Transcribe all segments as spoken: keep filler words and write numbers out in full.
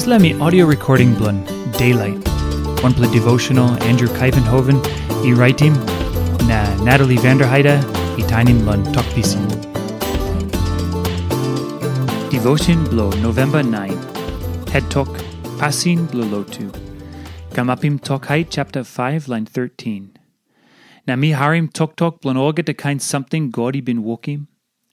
Dispela mi audio recording bilong Daylight, wanpela devotional Andrew Kaivenhoven i raitim, na Natalie Vanderheide i tainim long Tok Pisin. Devotion bilong November nine. Het tok, Pasin bilong Lotu. Kamapim Tok Hait chapter five, line thirteen. Na mi harim toktok bilong olgeta kain samting God i bin wokim,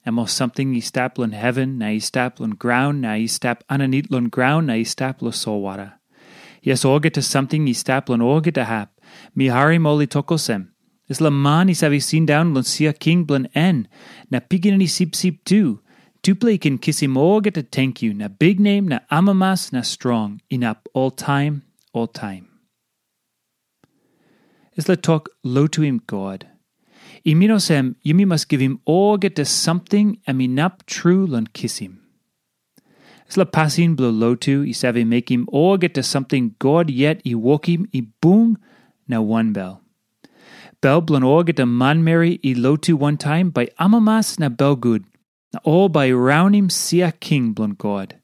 em ol samting i stap long heven na i stap long graun na i stap aninit long graun na i stap long solwara. Yes, olgeta samting i stap long olgeta hap, mi harim ol i tok olsem, dispela man i save sindaun long sia king bilong en, na pikinini sipsip tu, tupela i ken kisim olgeta tenkyu na biknem na amamas na strong inap oltaim, oltaim. Dispela tok lotuim God. I min olsem, yumi mas givim olgeta samting em inap tru long kisim. Dispela pasin bilong lotu i save mekim olgeta samting God yet i wokim i bung na wanbel. Bel bilong olgeta manmeri i lotu wantaim bai amamas na belgut, na ol bai raunim sia king bilong God.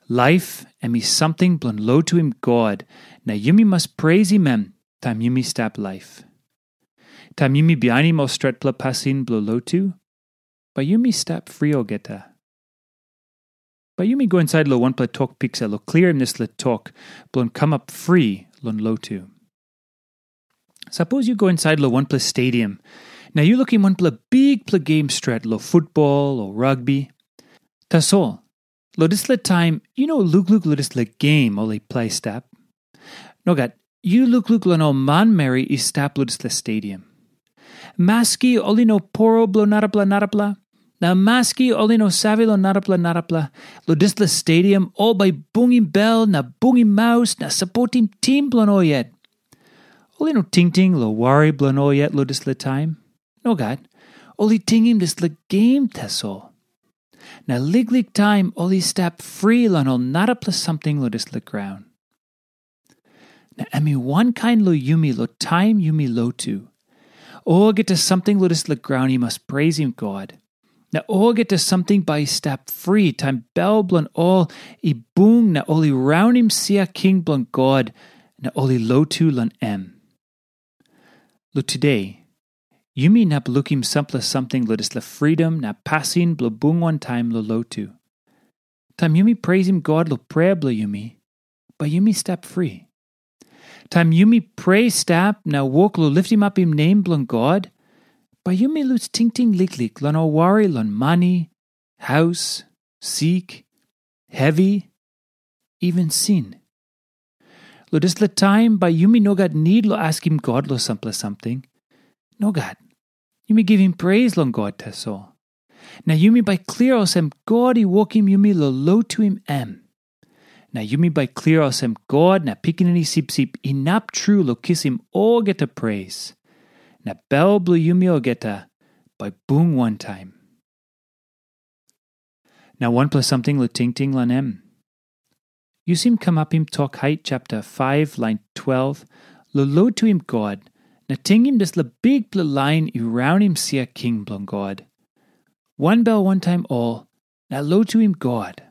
Laip em i samting bilong lotuim God, na yumi mas preisim em taim yumi stap laip. Taim yumi bihainim ol stretpela pasin bilong lotu, bai yumi stap fri olgeta. Bai yumi go insait long wanpela tok piksa long klirim dispela tok bilong kamap fri long lotu. Sapos yu go insait long wanpela stadium, na yu lukim wanpela bikpela gem stret long futbol o rugbi. Tasol, long dispela taim yu no lukluk long dispela gem ol i plai stap. Nogat, yu lukluk long ol manmeri i stap long dispela stadium. Maski ol i no poro bilong narapela narapela, na maski ol i no save long narapela narapela, long dispela stadium ol bai bungim bel na bungim maus na sapotim tim bilong ol yet. Ol i no tingting long wari bilong ol yet long dispela taim. Nogat, ol i tingim dispela gem tasol. Na liklik taim ol i stap fri long ol narapela samting long dispela graun. Na em i wankain long yumi long taim yumi lotu. Olgeta samting long dispela graun i mas preisim God. Na olgeta samting bai i stap fri taim bel bilong ol i bung na ol i raunim sia king bilong God na ol i lotu long em. Long tude, yumi inap lukim sampela samting long dispela fridom na pasin bilong bung wantaim long lotu. Taim yumi preisim God long prea bilong yumi, bai yumi stap fri. Taim yumi prea stap na wok long litimapim nem bilong God, bai yumi lus tingting liklik long ol wari long mani, haus, sik, hevi, even sin. Long dispela taim bai yumi no gat nid long askim God long sampela samting. Nogat. Yumi givim pres long God tasol. Na yumi bai klia olsem God i wokim yumi long lotuim em. Na yumi bai klia olsem God na Pikinini Sipsip inap tru long kisim olgeta pres. Na bel bilong yumi olgeta bai bung wantaim. Na wanpela samting long tingting long em. Yu sim kamapim Tok Hait chapter five lain twelve, long lotuim God, na tingim dispela bikpela lain i raunim sia king bilong God. Wanbel wantaim ol, na lotuim God.